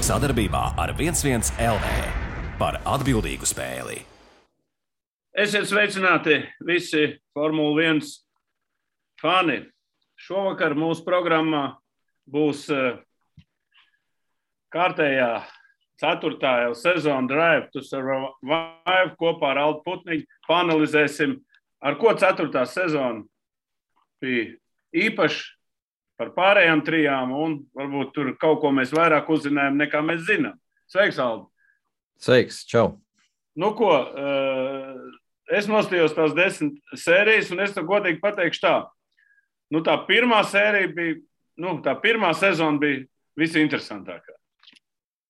Sadarbībā ar 11 LV par atbildīgu spēli. Esiet sveicināti visi Formula 1 fani. Šovakar mūsu programmā būs kārtējā 4. sezona Drive to Survive kopā ar Aldu Putniņu. Paanalizēsim, ar ko 4. sezona bija īpaši par pārējām trijām, un varbūt tur kaut ko mēs vairāk uzzinājām, nekā mēs zinām. Sveiks, Aldu! Sveiks, čau! Nu ko, es nostījos tās 10 sērijas, un es to godīgi pateikšu tā. Nu, tā pirmā sērija bija, tā pirmā sezona bija visinteresantākā.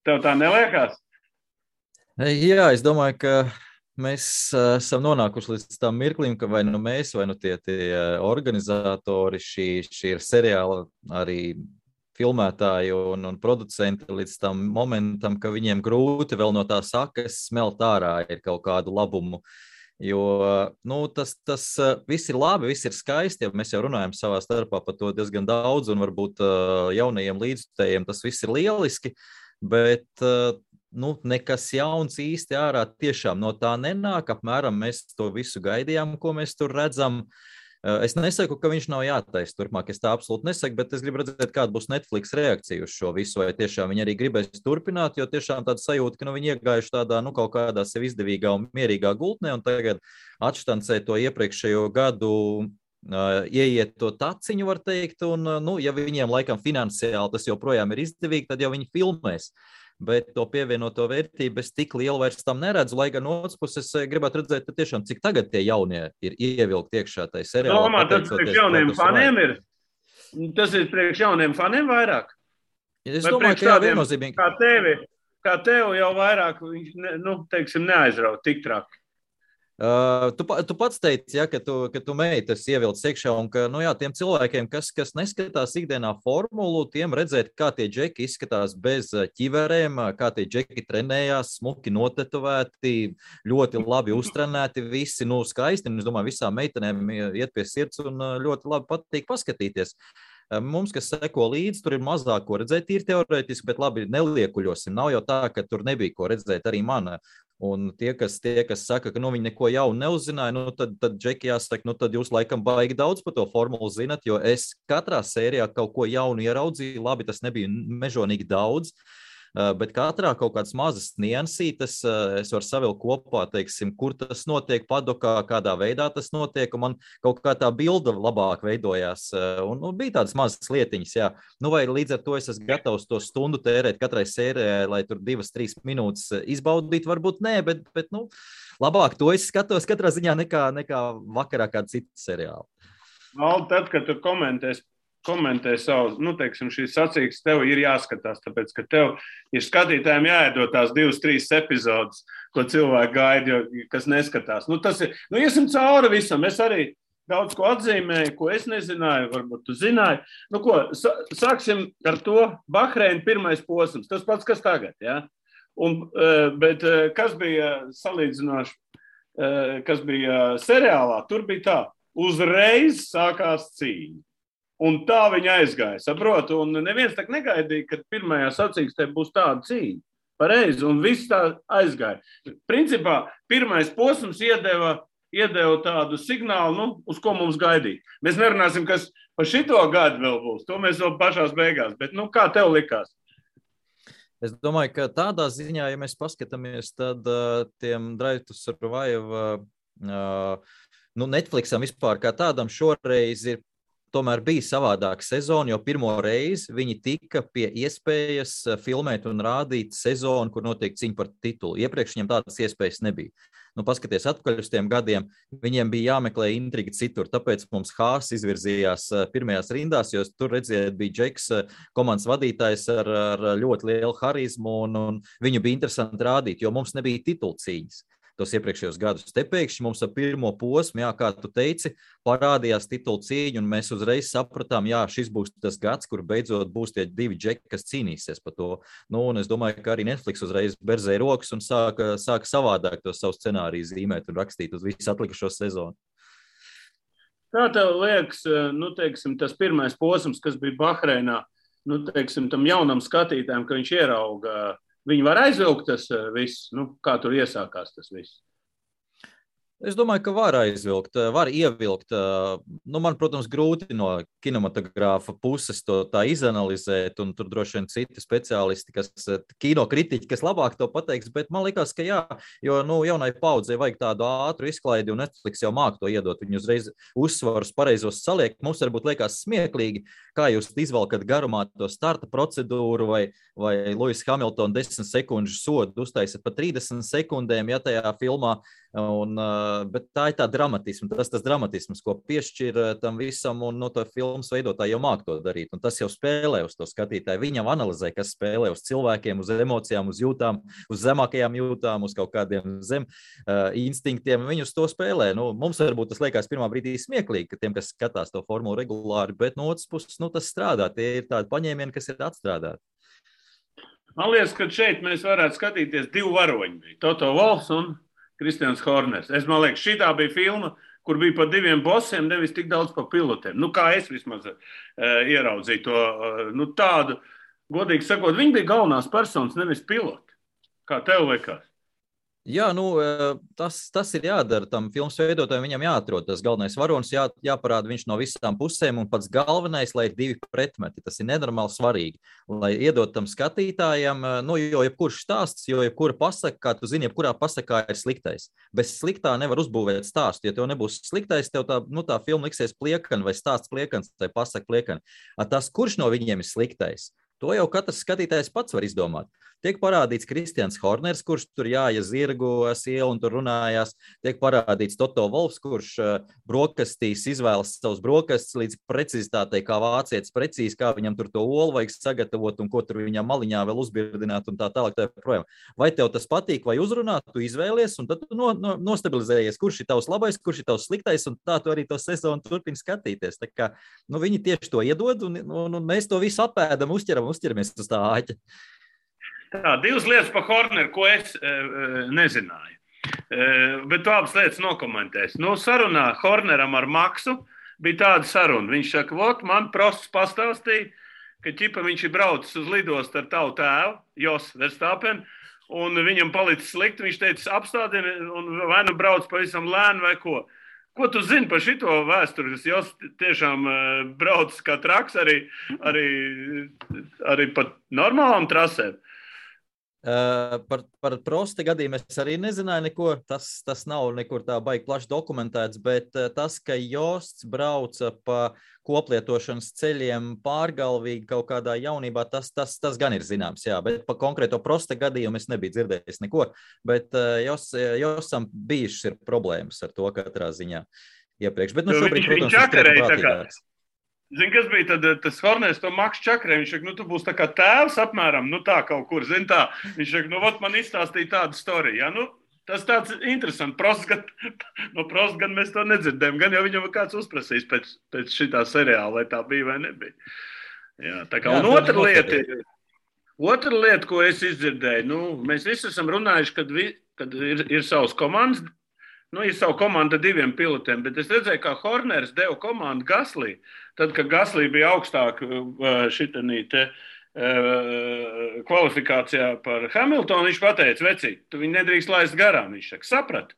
Tev tā neliekās? Jā, es domāju, ka mēs esam nonākuši līdz tam mirklim, ka vai nu mēs, vai nu tie organizatori, šī ir seriāla arī filmētāji un producenti līdz tam momentam, ka viņiem grūti vēl no tā sakas smelt ārā ir kaut kādu labumu. Jo tas viss ir labi, viss ir skaisti, ja mēs jau runājam savā starpā par to diezgan daudz, un varbūt jaunajiem līdzjutējiem tas viss ir lieliski, bet nekas jauns īsti ārā tiešām no tā nenāk. Apmēram mēs to visu gaidījām, ko mēs tur redzam. Es nesaku, ka viņš nav jātaisa turpmāk, es tā absolūti nesaku, bet es gribu redzēt, kāda būs Netflix reakcija uz šo visu, vai tiešām viņi arī gribēs turpināt, jo tiešām tāda sajūta, ka viņi iegājuši tādā, kaut kādā sev izdevīgā un mierīgā gultnē, un tagad atštancē to iepriekšējo gadu, ieiet to taciņu, var teikt, un, ja viņiem laikam finansiāli tas joprojām ir izdevīgi, tad jau viņi filmēs. Bet to pievienoto vērtību es tik lielu vairs tam neredzu, lai gan no otras puses gribētu redzēt, tiešām, cik tagad tie jaunie ir ievilkti iekšā tai seriālā. Domā, tas priekš jauniem faniem ir? Tas ir priekš jauniem faniem vairāk? Es domāju, ka jā, viennozīmīgi. Kā tev jau vairāk, neaizrauj tik traki. Tu pats teici, ka tu meitas ievilcis iekšā, un ka, tiem cilvēkiem, kas neskatās ikdienā formulu, tiem redzēt, kā tie džeki izskatās bez ķiverēm, kā tie džeki trenējās, smuki notetovēti, ļoti labi uztrenēti, visi, skaisti, un es domāju, visām meitenēm iet pie sirds un ļoti labi patīk paskatīties. Mums, kas seko līdzi, tur ir mazāk ko redzēt, ir teorētiski, bet labi neliekuļosim. Nav jau tā, ka tur nebija ko redzēt arī man. Un tie, kas saka, ka viņi neko jaunu neuzzināja, tad džeki jāsaka, tad jūs laikam baigi daudz par to formulu zinat, jo es katrā sērijā kaut ko jaunu ieraudzīju, labi, tas nebija mežonīgi daudz, bet katrā kaut kādas mazas niansītes es varu savilkt kopā, teiksim, kur tas notiek padokā, kādā veidā tas notiek, un man kaut kā tā bilda labāk veidojās, un bija tādas mazas lietiņas, jā. Vai līdz ar to es esmu gatavs to stundu tērēt katrai sērijai, lai tur 2-3 minūtes izbaudītu, varbūt nē, bet labāk to es skatos katrā ziņā nekā vakarā kāda cita seriāla. Aldi, tad, kad tu komentē savu, šīs sacīkstes, tev ir jāskatās, tāpēc, ka tev ir skatītājiem jāiedod tās 2-3 epizodes, ko cilvēki gaida, kas neskatās. Tas ir, iesim cauri visam, es arī daudz ko atzīmēju, ko es nezināju, varbūt tu zināji. Sāksim ar to Bahreina pirmais posms, tas pats, kas tagad, jā? Bet kas bija salīdzinoši, kas bija seriālā, tur bija tā, uzreiz sākās cīņa. Un tā viņa aizgāja, saprotu, un neviens tak negaidīja, ka pirmajā sacīkstē būs tāda cīņa. Pareizi, un viss tā aizgāja. Principā, pirmais posms iedeva tādu signālu, uz ko mums gaidīt. Mēs nerunāsim, kas par šito gadu vēl būs, to mēs vēl pašās beigās, bet kā tev likās? Es domāju, ka tādā ziņā, ja mēs paskatāmies, tad tiem Drive to Survive, Netflixam vispār kā tādam šoreiz ir tomēr bija savādāka sezona, jo pirmo reizi viņi tika pie iespējas filmēt un rādīt sezonu, kur notiek cīņa par titulu. Iepriekš viņiem tādas iespējas nebija. Paskaties atpakaļ uz tiem gadiem, viņiem bija jāmeklē intriga citur, tāpēc mums Haas izvirzījās pirmajās rindās, jo tur redziet, bija Džeks, komandas vadītājs ar ļoti lielu harizmu, un viņu bija interesanti rādīt, jo mums nebija titulu cīņas. Tos iepriekšējos gadus. Te pēkšņi mums ar pirmo posmu, kā tu teici, parādījās titulu cīņa, un mēs uzreiz sapratām, šis būs tas gads, kur beidzot būs tie 2 džeki, kas cīnīsies par to. Un es domāju, ka arī Netflix uzreiz berzēja rokas un sāka savādāk to savu scenāriju zīmēt un rakstīt uz visu atlikušo sezonu. Kā tev liekas, tas pirmais posms, kas bija Bahreinā, nu, teiksim, tam jaunam skatītājam, ka viņš ierauga, viņi var aizvilkt tas viss, nu, kā tur iesākās tas viss? Es domāju, ka var aizvilkt, var ievilkt. Nu, man, protams, grūti no kinematogrāfa puses to tā izanalizēt, un tur droši vien citi speciālisti, kinokritiķi, kas labāk to pateiks, bet man liekas, ka jā, jo nu, jaunai paudzei vajag tādu ātru izklaidi, un Netflix jau māk to iedot. Viņi uzreiz uzsvarus pareizos saliek. Mums varbūt liekas smieklīgi, kā jūs izvelkat garumā to starta procedūru vai Lewis Hamilton 10 sekundžu sodu uztaisat pa 30 sekundēm, ja tajā filmā. Bet tā ir tā dramatisma, tas dramatisms, ko piešķir tam visam, un no to filmas veidotāji jau māk to darīt, un tas jau spēlē uz to skatītāju. Viņam analizē, kas spēlē uz cilvēkiem, uz emocijām, uz jūtām, uz zemākajām jūtām, uz kaut kādiem instinktiem, viņi uz to spēlē. Nu, mums varbūt tas liekas pirmā brīdī smieklīgi, ka tiem, kas skatās to formulu regulāri, bet no otras puses, nu, tas strādā, tie ir tādi paņēmieni, kas ir atstrādāti. Man liekas, ka šeit mēs varētu skatīties divu varoņu, Toto Wolffs un Kristians Horners. Man liekas, šitā bija filma, kur bija pa diviem bosiem, nevis tik daudz pa pilotiem. Nu, kā es vismaz ieraudzīju to, nu, tādu, godīgi sakot, viņi bija galvenās personas, nevis piloti. Kā tev liekas? Jā, nu, tas ir jādara tam filmas veidotājiem, viņam jāatrod tas galvenais varonis, jāparāda viņš no visām pusēm, un pats galvenais, lai ir divi pretmeti. Tas ir nenormāli svarīgi, lai iedot tam skatītājiem, nu, jo jebkurš stāsts, jo jebkura pasaka, kā tu zini, jebkurā pasakā ir sliktais. Bez sliktā nevar uzbūvēt stāstu, ja tev nebūs sliktais, tev tā filma liksies pliekana vai stāsts pliekans, vai pasaka pliekana. Tas, kurš no viņiem ir sliktais? To jau katrs skatītājs pats var izdomāt. Tiek parādīts Kristians Horners, kurš tur jāja zirgu sielu un tur runājās. Tiek parādīts Toto Wolffs, kurš brokastīs izvēlas savus brokastus līdz precizitātei, kā vācietis precīzi, kā viņam tur to olu vajag sagatavot un ko tur viņam maliņā vēl uzbirdināt un tā tālāk. Tā projām. Vai tev tas patīk vai uzrunāt, tu izvēlies un tad tu nostabilizējies, kurš ir tavs labais, kurš ir tavs sliktais, un tā tu arī to sezonu turpini skatīties. Tā kā, nu, viņi tieši to iedod un mēs to visu apēdam, uzķeramies uz tā āķa. Tā, divas lietas par Horneru, ko es nezināju. Bet tu abas lietas nokomentēsi. Nu, sarunā Horneram ar Maksu bija tāda saruna. Viņš saka, vot, man prosts pastāstīja, ka ķipa viņš ir braucis uz lidostu ar tavu tēvu, Jos Verstappen, un viņam palicis slikti. Viņš teica, apstādini, un vai nu brauc pavisam lēni vai ko. Ko tu zini par šito vēsturi? Jos tiešām braucis kā traks arī pat normālām trasēm. Par Prosta gadījumu es arī nezināju neko, tas nav nekur tā baigi plaši dokumentēts, bet tas, ka Josts brauca pa koplietošanas ceļiem pārgalvīgi kaut kādā jaunībā, tas gan ir zināms, jā, bet pa konkrēto Prosta gadījumu es nebiju dzirdējis neko, bet Jostam bijušas ir problēmas ar to katrā ziņā iepriekš, bet nu šobrīd, protams, ir prātīgāks. Zini, kas bija tad, tas Horners to Maksu čakarē? Viņš saka, nu, tu būsi tā kā tēvs apmēram, nu tā kaut kur, zini tā. Viņš saka, nu, vot man izstāstīja tādu storiju, ja, nu, tas tāds interesants. No Prosta gan mēs to nedzirdējam, gan jau viņam kāds uzprasīs pēc šitā seriāla, vai tā bija vai nebija. Jā, tā kā, un otra lieta, ko es izdzirdēju, nu, mēs visi esam runājuši, kad ir savas komandas, nu, ir savu komandu diviem pilotiem, bet es redzēju, kā Horners deva komandu Gaslī. Tad, kad Gaslī bija augstāk šitanī te kvalifikācijā par Hamiltonu, viņš pateica, vecīt, tu viņu nedrīkst laist garām. Viņš saka, sapratu,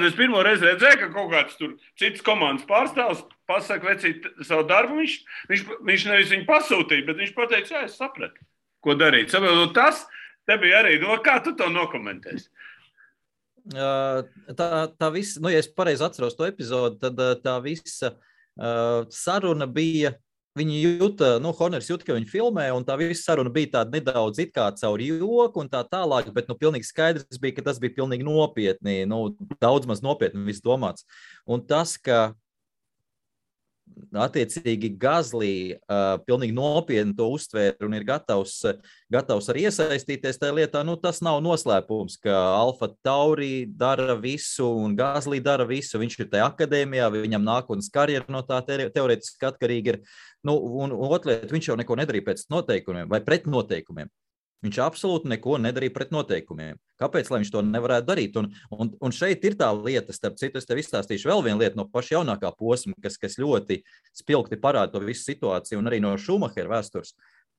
es pirmo reizi redzēju, ka kaut kāds tur cits komandas pārstāvs pasaka, vecīt, savu darbu. Viņš nevis viņu pasūtīja, bet viņš pateica, jā, es sapratu, ko darīt. Sapratu, tas te bija arī, kā tu to nokomentēsi? Tā visa, nu, ja es pareizi atceros to epizodu, tad tā visa saruna bija, viņi jūta, nu, Horners jūta, ka viņi filmē, un tā visa saruna bija tāda nedaudz it kā caur joku un tā tālāk, bet, nu, pilnīgi skaidrs bija, ka tas bija pilnīgi nopietni, nu, daudz maz nopietni viss domāts. Un tas, ka attiecīgi Gaslī pilnīgi nopietni to uztvēra un ir gatavs arī iesaistīties tajā lietā, nu tas nav noslēpums, ka Alfa Tauri dara visu un Gaslī dara visu, viņš ir tajā akadēmijā, viņam nākotnes karjera no tā teorētiski atkarīgi ir, nu, un otrliet, viņš jau neko nedarīja pēc noteikumiem vai pret noteikumiem. Viņš absolūti neko nedarīja pret noteikumiem. Kāpēc, lai viņš to nevarētu darīt? Un šeit ir tā lieta, starp citu, es tev izstāstīšu vēl vienu lietu no paša jaunākā posma, kas ļoti spilgti parāda to visu situāciju un arī no Šumahera vēstures.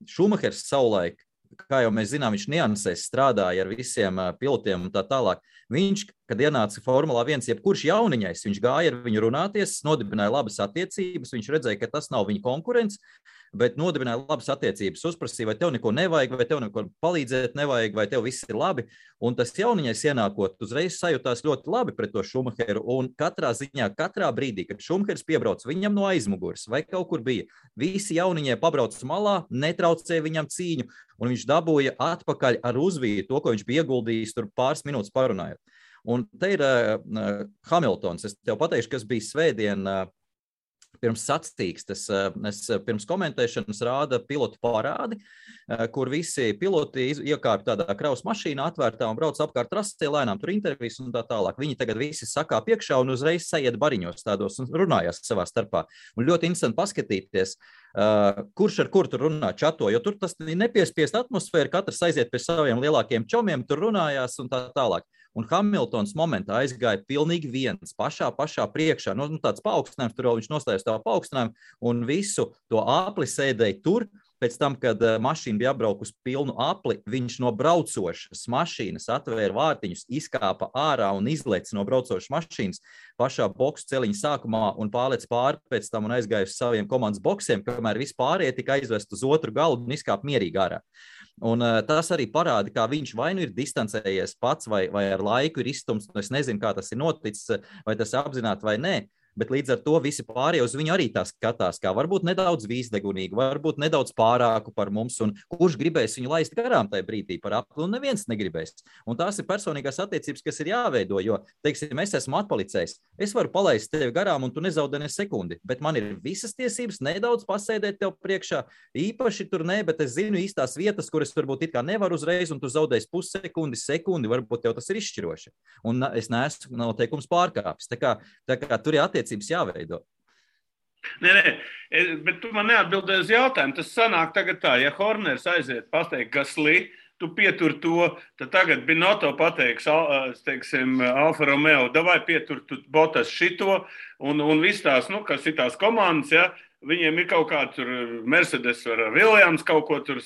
Šumahers savulaik, kā jau mēs zinām, viņš niansēs strādāja ar visiem pilotiem un tā tālāk. Viņš, kad ienāca Formulā 1, jebkurš jauniņais, viņš gāja ar viņu runāties, nodibināja labas attiecības, viņš redzēja, ka tas nav viņa konkurents, bet nodibināja labas attiecības, uzprasīja, vai tev neko nevajag, vai tev neko palīdzēt nevajag, vai tev viss ir labi. Un tas jauniņais ienākot, uzreiz sajūtās ļoti labi pret to Šumacheru, un katrā ziņā, katrā brīdī, kad Šumahers piebrauc viņam no aizmugures, vai kaut kur bija, visi jauniņie pabrauc malā, netraucēja viņam cīņu, un viņš dabūja atpakaļ ar uzvīju to, ko viņš bija ieguldījis tur pāris minūtes parunājot. Un te ir Hamiltons, es tev pateikšu, kas bija svētdien pirms sacīkstes, es pirms komentēšanas rāda pilotu parādi, kur visi piloti iekārp tādā kravas mašīnā atvērtā un brauc apkārt trasē, lēnām tur intervijas un tā tālāk. Viņi tagad visi sakā piekšā un uzreiz sajiet bariņos tādos un runājās savā starpā. Un ļoti interesanti paskatīties, kurš ar kur tur runā čato, jo tur tas nepiespiest atmosfēra, katrs aiziet pie saviem lielākiem čomiem, tur runājās un tā tālāk. Un Hamiltons momentā aizgāja pilnīgi viens, pašā priekšā, tāds paaugstinājums, tur viņš nostājās tā paaugstinājumu un visu to apli sēdēja tur. Pēc tam, kad mašīna bija apbraukus pilnu apli, viņš no braucošas mašīnas atvēra vārtiņus, izkāpa ārā un izlec no braucošas mašīnas pašā boksu celiņa sākumā un pārlec pāri pēc tam un aizgāja uz saviem komandas boksiem, kamēr vispārējie tika aizvest uz otru galdu un izkāpa mierīgi ārā. Un tas arī parāda, kā viņš vai nu ir distancējies pats vai ar laiku ir izstumts, es nezinu, kā tas ir noticis, vai tas apzināti vai nē. Bet līdz ar to visi pārējie uz viņu arī tā skatās, kā varbūt nedaudz vīzdegunīgi, varbūt nedaudz pārāku par mums, un kurš gribēs viņu laist garām tajā brīdī par apli, un neviens negribēs. Un tās ir personīgās attiecības, kas ir jāveido, jo, teiksim, es esmu atpalicējis, es varu palaist tevi garām, un tu nezaudē ne sekundi, bet man ir visas tiesības nedaudz pasēdēt tev priekšā, īpaši tur ne, bet es zinu īstās vietas, kuras varbūt it kā nevar uzreiz, un tu zaudēsi pussekundi, varbūt tev tas ir izšķiroši. Un es neesmu noteikums pārkāpis. Tā kā tur ir attiecības jāveido. Nē, bet tu man neatbildēji uz jautājumu. Tas sanāk tagad tā, ja Horners aiziet pateikt Gasly, tu pietur to, tad tagad Binotto pateiks, teiksim, Alfa Romeo, davai pietur tu Bottas šito, un viss tās, kas ir tās komandas, ja, viņiem ir kaut kā tur Mercedes vai Williams kaut ko tur.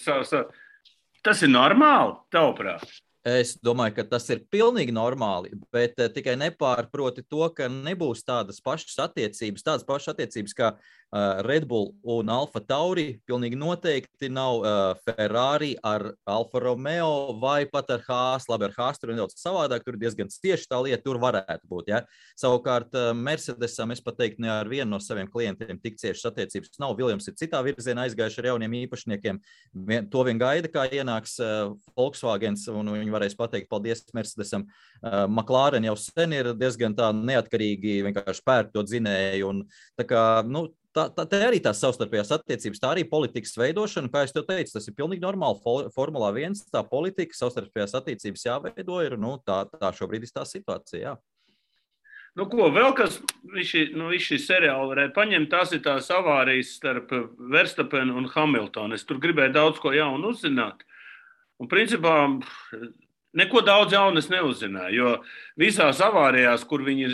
Tas ir normāli, tavuprāt? Es domāju, ka tas ir pilnīgi normāli, bet tikai nepārproti to, ka nebūs tādas pašas attiecības kā Red Bull un Alfa Tauri. Pilnīgi noteikti nav Ferrari ar Alfa Romeo vai pat ar Haas. Labi, ar Haas tur ir nedaudz savādāk, tur ir diezgan tieši tā lieta, tur varētu būt. Ja? Savukārt Mercedesam, es pat teiktu, ne ar vienu no saviem klientiem tik ciešas attiecības nav. Williams ir citā virzienā aizgājuši ar jauniem īpašniekiem. To vien gaida, kā ienāks Volkswagens, un viņi varēs pateikt paldies Mercedesam. McLaren jau sen ir diezgan tā neatkarīgi vienkārši pērk to dzinēju. Un tā kā, tā arī tās savstarpējās attiecības, tā arī politikas veidošana, kā es tev teicu, tas ir pilnīgi normāli Formulā 1, tā politika, savstarpējās attiecības jāveido ir, tā šobrīd ir tā situācija, jā. Vēl kas šī seriāla varētu paņemt, tās ir tās avārijas starp Verstappenu un Hamiltonu. Es tur gribēju daudz ko jaunu uzzināt. Un principā neko daudz jaunu es neuzzināju, jo visās avārijās, kur viņi,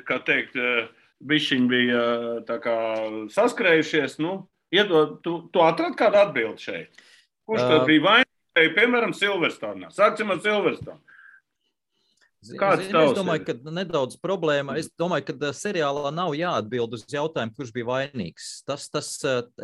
kā teikt, bišķiņi bija tā kā saskrējušies, tu atradi kādu atbildi šeit? Kurš tad bija vainīgs, piemēram, Silverstone? Sāksim ar Silverstone. Es domāju, ka nedaudz problēma. Es domāju, ka seriālā nav jāatbild uz jautājumu, kurš bija vainīgs.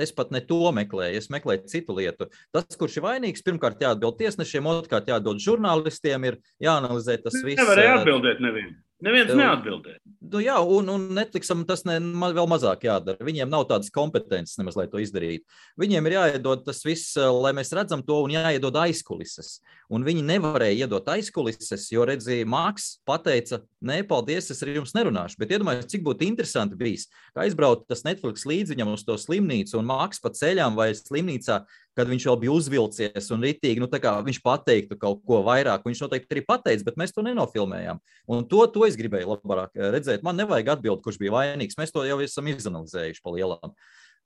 Es pat ne to meklēju, es meklēju citu lietu. Tas, kurš ir vainīgs, pirmkārt jāatbild tiesnešiem, otrkārt jāatbild žurnālistiem, ir jāanalizē tas viss. Nevarēja atbildēt nevienu. Neviens neatbildēja. Jā, un Netflixam tas vēl mazāk jādara. Viņiem nav tādas kompetences nemaz, lai to izdarītu. Viņiem ir jāiedod tas viss, lai mēs redzam to, un jāiedod aizkulises. Un viņi nevarēja iedot aizkulises, jo, redzīja, Maks pateica, nē, paldies, es ar jums nerunāšu. Bet iedomājos, cik būtu interesanti bijis, ka aizbraukt tas Netflix līdz viņam uz to slimnīcu, un Maks pa ceļām vai slimnīcā, kad viņš vēl bija uzvilcies un ritīgi, viņš pateiktu kaut ko vairāk. Viņš noteikti arī pateica, bet mēs to nenofilmējām. Un to es gribēju labāk redzēt. Man nevajag atbildi, kurš bija vainīgs. Mēs to jau esam izanalizējuši pa lielām.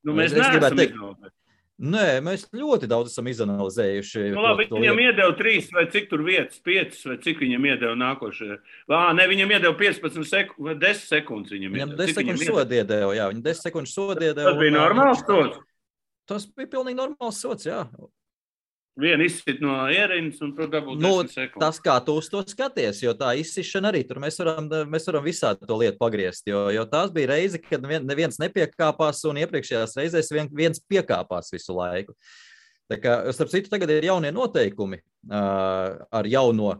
Mēs neesam izanalizējuši. Nē, mēs ļoti daudz esam izanalizējuši. Labi, viņam iedeva 3 vai cik tur vietas, 5 vai cik viņam iedeva nākošajā. Viņam iedeva 15 vai 10 sekundes. Viņam 10 sekundes sodu iedeva, jā. Viņam 10 sekundes sodu iedeva. Tas bija normāls sods. Tas bija pilnīgi normāls sots, jā. Vienu izsit no ierīnas un tur dabūt 10 sekundes. Tas, kā tu uz to skaties, jo tā izsišana arī tur mēs varam visādi to lietu pagriezt, jo tās bija reize, kad neviens nepiekāpās un iepriekšējās reizēs viens piekāpās visu laiku. Tā kā, starp citu, tagad ir jaunie noteikumi ar jauno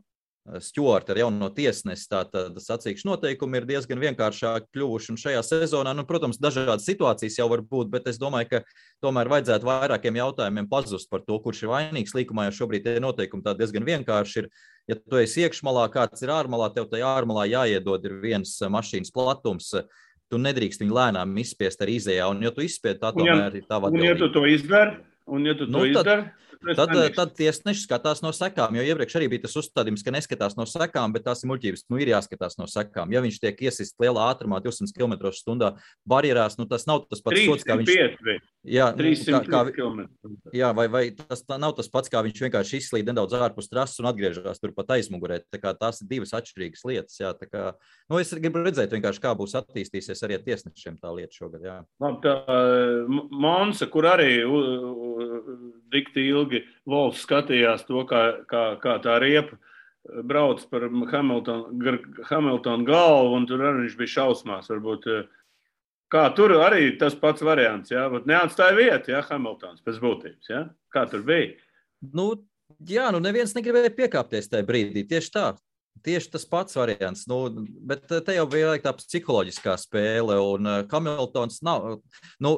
Stjuartu, ar jauno tiesnesi, tātad sacīkšu noteikumi ir diezgan vienkāršāk kļuvuši, un šajā sezonā, protams, dažādas situācijas jau var būt, bet es domāju, ka tomēr vajadzētu vairākiem jautājumiem pazust par to, kurš ir vainīgs. Līkumā jau šobrīd tie noteikumi tā diezgan vienkārši ir. Ja tu esi iekšmalā, kāds ir ārmalā, tev tajā ārmalā jāiedod ir viens mašīnas platums, tu nedrīkst viņu lēnām izspiest ar izējā, un ja tu izspied, tā tomēr ir tava atbildība. Un ja tu to izdari, Tad tiesneši skatās no sekām, jo iepriekš arī bija tas uzstādījums, ka neskatās no sekām, bet tās ir muļķības. Ir jāskatās no sekām. Ja viņš tiek iesist lielā ātrumā 200 km/h barjerās, tas nav tas pats sots, kā viņš... 300 km. Jā, vai tas nav tas pats, kā viņš vienkārši izslīd nedaudz ārpus trases un atgriežas turpat aizmugurē. Tā kā tās ir divas atšķirīgas lietas. Jā, tā kā, es gribu redzēt vienkārši, kā būs attīstīsies arī tiesnešiem tā lieta šogad. Jā. Tā Monza, kur arī dikti ilgi Volfs skatījās to, kā tā riepa brauc par Hamiltonu galvu, un tur arī viņš bija šausmās. Varbūt, kā tur arī tas pats variants, jā? Neatstāja vietu, jā, Hamiltons pēc būtības, jā? Kā tur bija? Neviens negribēja piekāpties tajā brīdī, tieši tā. Tieši tas pats variants, bet te jau bija tā psiholoģiskā spēle, un Hamiltons nav,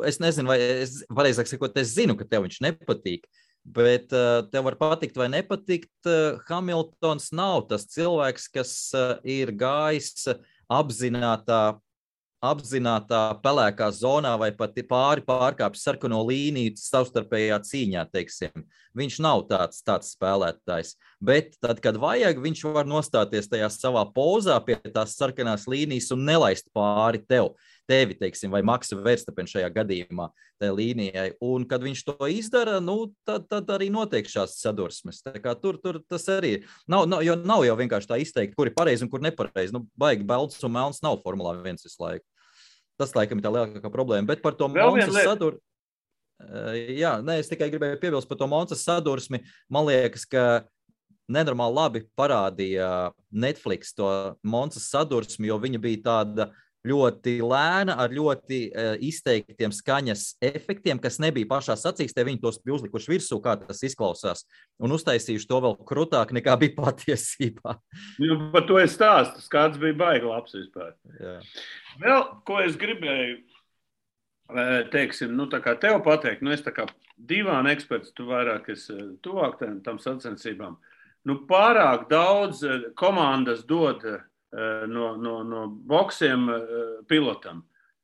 es nezinu, vai pareizāk sakot, es zinu, ka tev viņš nepatīk, bet tev var patikt vai nepatikt, Hamiltons nav tas cilvēks, kas ir gājis apzinātā pelēkā zonā vai pat pārkāpis sarkano līniju savstarpējā cīņā, teiksim. Viņš nav tāds spēlētājs, bet tad, kad vajag, viņš var nostāties tajā savā pozā pie tās sarkanās līnijas un nelaist pāri tevi, teiksim, vai Maksa Verstappen šajā gadījumā tajā līnijai. Un, kad viņš to izdara, tad arī notiek šās sadursmes. Tā kā tur tas arī jo nav jau vienkārši tā izteikti, kur ir pareizi un kur nepareizi. Baigi balts un melns nav Formulā 1 visu laiku. Tas, laikam, ir tā lielākā problēma. Bet par to Monsas sadursmi, es tikai gribēju piebilst par to Monsas sadursmi. Man liekas, ka nenormāli labi parādīja Netflix to Monsas sadursmi, jo viņa bija tāda ļoti lēna, ar ļoti izteiktiem skaņas efektiem, kas nebija pašā sacīkstē, viņi tos bija uzlikuši virsū, kā tas izklausās, un uztaisījuši to vēl krutāk, nekā bija patiesībā. Par to es stāstu, kāds bija baigi labs vispār. Jā. Vēl, ko es gribēju, teiksim, tā kā tev pateikt, es tā kā divāna eksperts, tu vairāk esi tuvāk tam sacensībām, pārāk daudz komandas dod no boksiem pilotam.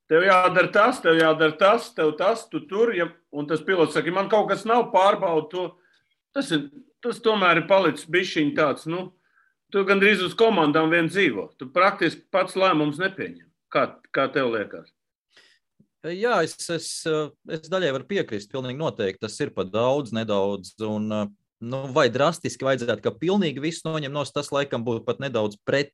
Tev jādara tas, tev tas, tu tur, un tas pilots saka, man kaut kas nav pārbaudu to. Tas tomēr ir palicis bišķiņ tāds, tu gandrīz uz komandām vien dzīvo. Tu praktiski pats lēmums nepieņem. Kā tev liekas? Jā, es daļai varu piekrist, pilnīgi noteikti. Tas ir pat daudz, nedaudz, un vai drastiski vajadzētu, ka pilnīgi viss noņem nos, tas laikam būtu pat nedaudz pret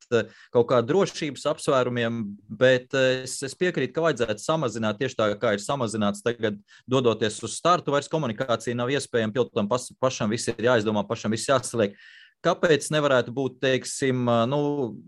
kaut kā drošības apsvērumiem, bet es piekrītu, ka vajadzētu samazināt tieši tā, kā ir samazināts tagad, dodoties uz startu, vairs komunikācija nav iespējama, pilotam pašam viss ir jāizdomā, pašam viss jāsaliek. Kāpēc nevarētu būt, teiksim,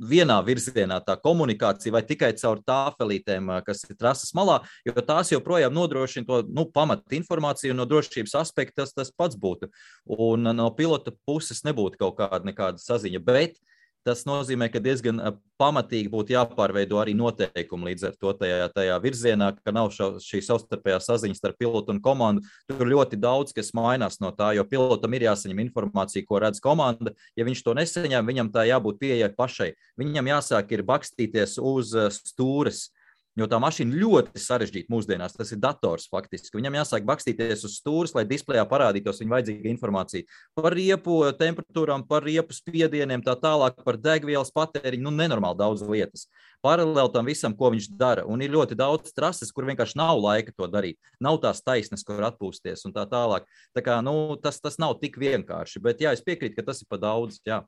vienā virzienā tā komunikācija vai tikai caur tāfelītēm, kas ir trases malā, jo tās joprojām nodrošina to pamata informāciju un no drošības aspekta tas pats būtu. Un no pilota puses nebūtu kaut nekāda saziņa, bet tas nozīmē, ka diezgan pamatīgi būtu jāpārveido arī noteikumi līdz ar to tajā virzienā, ka nav šī savstarpējā saziņa starp pilotu un komandu. Tur ļoti daudz, kas mainās no tā, jo pilotam ir jāsaņem informācija, ko redz komanda. Ja viņš to nesaņem, viņam tā jābūt pieejai pašai. Viņam jāsāk ir bakstīties uz stūres, jo tā mašīna ļoti sarežģīta mūsdienās. Tas ir dators faktiski. Viņam jāsāk bakstīties uz stūres, lai displejā parādītos viņa vajadzīga informācija par riepu temperatūrām, par riepu spiedieniem, tā tālāk, par degvielas patēriņu, nenormāli daudz lietas. Paralēli tam visam, ko viņš dara. Un ir ļoti daudz trases, kur vienkārši nav laika to darīt. Nav tās taisnes, kur atpūsties un tā tālāk. Tā kā, tas nav tik vienkārši. Bet jā, es piekrītu, ka tas ir pa daudz. Jā.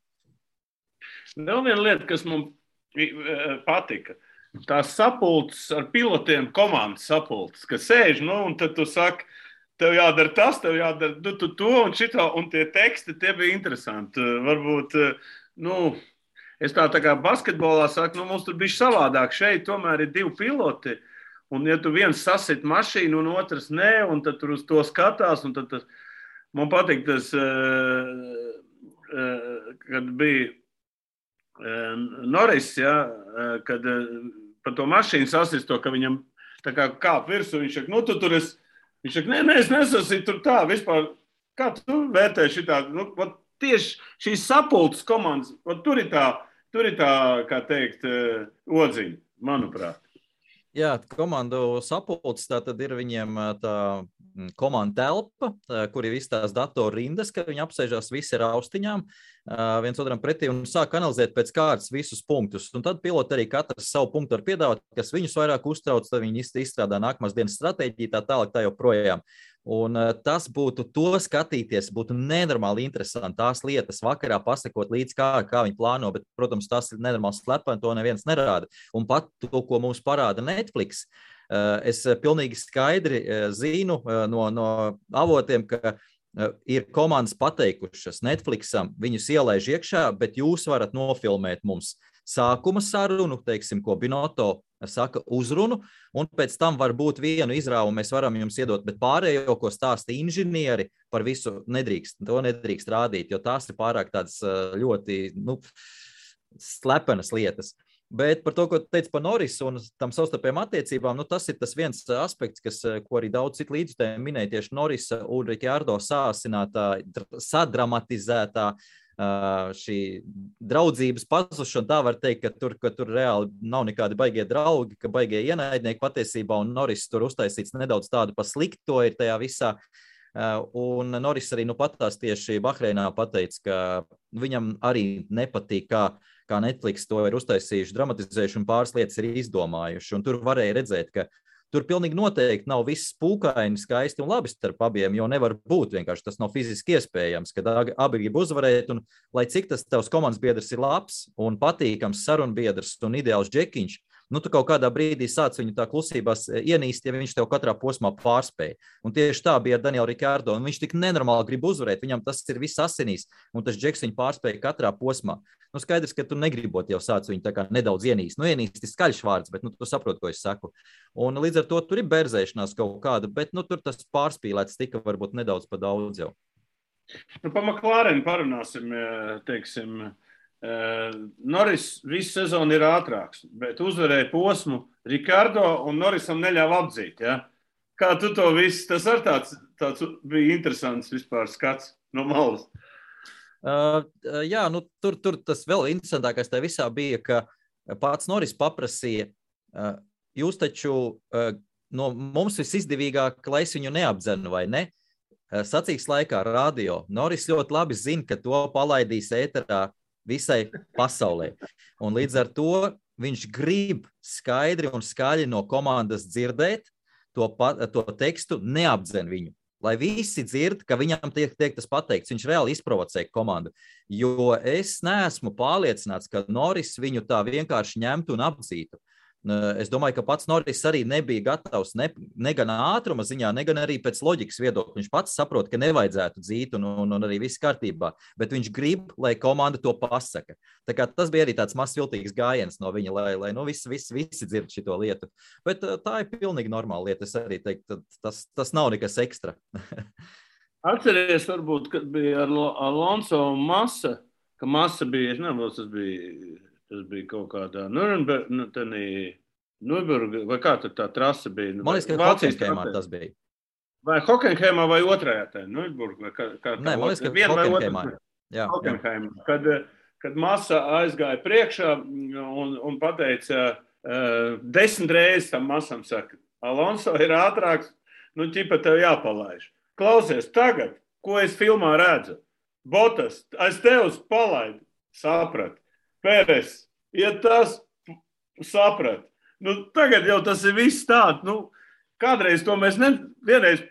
Vēl viena lieta, kas man patika. Tās sapulces ar pilotiem, komandas sapulces, kas sēž, un tad tu saki, tev jādara tas, tev jādara to un šito, un tie teksti, tie bija interesanti. Varbūt, es tā kā basketbolā saku, mums tur bija savādāk. Šeit tomēr ir 2 piloti, un ja tu viens sasit mašīnu un otrs nē, un tad tur uz to skatās, un tad man patīk tas, kad bija Norris, ja, kad par to mašīnu sasist to, ka viņam tā kā kāp virsū, viņš saka, tu tur esi. Viņš saka, nē, es nesasīju tur tā vispār. Kā tu vērtē šitā? Tieši šīs sapulces komandas, tur ir tā, kā teikt, odziņa, manuprāt. Jā, komandu sapulces, tā tad ir viņiem tā komanda telpa, kur ir visas tās datoru rindas, ka viņi apsēžās visi ar austiņām viens otram pretī un sāk analizēt pēc kārtas visus punktus. Un tad piloti arī katrs savu punktu var piedāvāt, kas viņus vairāk uztrauc, tad viņi izstrādā nākamās dienas stratēģiju, tā tālāk tā joprojām. Un tas būtu to skatīties, būtu nenormāli interesanti tās lietas vakarā pasakot līdz kā viņi plāno, bet, protams, tas ir nenormāli slepeni, to neviens nerāda. Un pat to, ko mums parāda Netflix, es pilnīgi skaidri zinu no avotiem, ka ir komandas pateikušas Netflixam, viņus ielaiž iekšā, bet jūs varat nofilmēt mums sākuma sarunu, teiksim, ko Binotto saka uzrunu, un pēc tam var būt vienu izrāvu, mēs varam jums iedot, bet pārējo, ko stāsta inženieri, par visu to nedrīkst rādīt, jo tās ir pārāk tādas ļoti, slepenas lietas. Bet par to, ko teicu par Norrisu un tam savstarpējām attiecībām, tas ir tas viens aspekts, ko arī daudz citu līdzutēji minēja tieši Norrisa un Ricciardo sāsinātā, sadramatizētā šī draudzības pazušana. Tā var teikt, ka tur reāli nav nekādi baigie draugi, ka baigie ienaidnieki patiesībā, un Norris tur uztaisīts nedaudz tādu pa slikto ir tajā visā. Un Norris arī patās tieši Bahreinā pateica, ka viņam arī nepatīk, kā Netflix to ir uztaisījuši, dramatizējuši un pāris lietas ir izdomājuši. Un tur varēja redzēt, ka tur pilnīgi noteikti nav viss pūkaini, skaisti un labi starp abiem, jo nevar būt vienkārši, tas nav fiziski iespējams, kad abi grib uzvarēt, un lai cik tas tavs komandas biedrs ir labs un patīkams sarunbiedrs un ideāls džekiņš, tu kaut kādā brīdī sāc viņu tā klusībās ienīst, ja viņš tev katrā posmā pārspēja. Un tieši tā bija ar Danielu Ricciardo, un viņš tik nenormāli grib uzvarēt, viņam tas ir viss asinīs, un tas džeks viņu pārspēja katrā posmā. Skaidrs, ka tu negribot jau sāc viņu tā kā nedaudz ienīst. Ienīst ir skaļš vārds, bet tu saproti, ko es saku. Un līdz ar to tur ir berzēšanās kaut kāda, bet tur tas pārspīlēts tika varbūt nedaudz pa daudz jau. Pa McLaren parunāsim, teiksim, Norris visu sezonu ir ātrāks, bet uzvarēja posmu Ricciardo un Norrisam neļāva apdzīt, ja? Kā tu to visu, tas ar tāds bija interesants vispār skats no malas. Jā, tur tas vēl interesantākais tā visā bija, ka pats Norris paprasīja, jūs taču no mums visizdevīgāk, lai es viņu neapdzenu vai ne? Sacīks laikā radio. Norris ļoti labi zina, ka to palaidīs ēterā visai pasaulē. Un līdz ar to viņš grib skaidri un skaļi no komandas dzirdēt to tekstu, neapdzen viņu. Lai visi dzird, ka viņam tiek tas pateikts, viņš reāli izprovocē komandu. Jo es neesmu pārliecināts, ka Norris viņu tā vienkārši ņemtu un apdzītu. Es domāju, ka pats Norris arī nebija gatavs ne gan ātruma ziņā, ne gan arī pēc loģikas viedokļa. Viņš pats saprot, ka nevajadzētu dzīt un arī viss kārtībā, bet viņš grib, lai komanda to pasaka. Tā kā tas bija arī tāds mazs viltīgs gājiens no viņa, lai visi dzird šito lietu. Bet tā ir pilnīgi normāla lieta, es arī teiktu, tas nav nekas ekstra. Atceries varbūt, kad bija ar Alonso un Massa, ka Massa bija, es nezinu, tas bija kaut kādā Nürburgā, vai kā tur tā trasa bija? Man liekas, ka Hockenheimā tas bija. Vai Hockenheimā vai otrajā tā, Nürburgā? Nē, man liekas, ka Hockenheimā. Hockenheimā. Kad Massa aizgāja priekšā un pateica 10 reizes tam Massam saka, Alonso ir ātrāks, ķipa tev jāpalaiž. Klausies, tagad, ko es filmā redzu? Botas, aiz tevs palaid, saprat. Pēres, ja tas saprat. Tagad jau tas ir viss tāds. Kādreiz to mēs vienreiz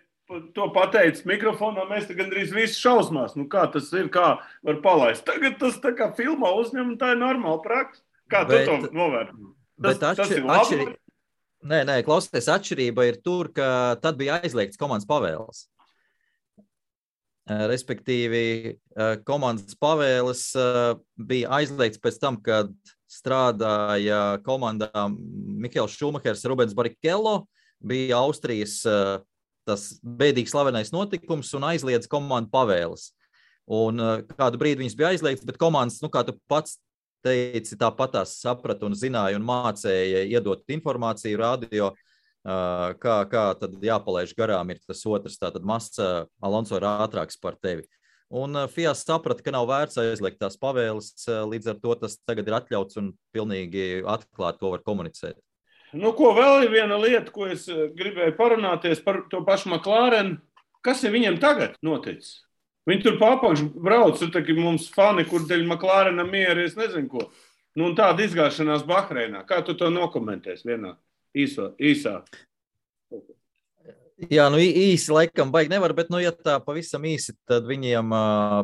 to pateicis mikrofonā, mēs te gandrīz visi šausmās. Kā tas ir, kā var palaist. Tagad tas tā kā filmā uzņem, un tā ir normāla praksa. Kā tu to novērtē? Tas ir labi? Nē, klausies, atšķirība ir tur, ka tad bija aizliegts komandas pavēles. Respektīvi, komandas pavēles bija aizliegts pēc tam, kad strādāja komandā Mihails Šumahers, Rubens Barrichello, bija Austrijas tas bēdīgi slavenais notikums un aizliedz komandu pavēles. Un kādu brīdi viņas bija aizliegts, bet komandas, kā tu pats teici, tāpatās saprata un zināja un mācēja iedot informāciju radio, kā tad jāpalaiž garām ir tas otrs, tātad Massa Alonso ir ātrāks par tevi. Un FIA saprata, ka nav vērts aizliegt tās pavēles, līdz ar to tas tagad ir atļauts un pilnīgi atklāt, ko var komunicēt. Ko vēl ir viena lieta, ko es gribēju parunāties par to pašu McLaren. Kas ir viņiem tagad noticis? Viņi tur papakš brauc, tur mums fani, kur dēļ McLarenam mieri, es nezinu ko. Un tāda izgāšanās Bahreinā. Kā tu to nokomentēs vienā? Īsā. Jā, īsi laikam baigi nevar, bet, ja tā pavisam īsi, tad viņiem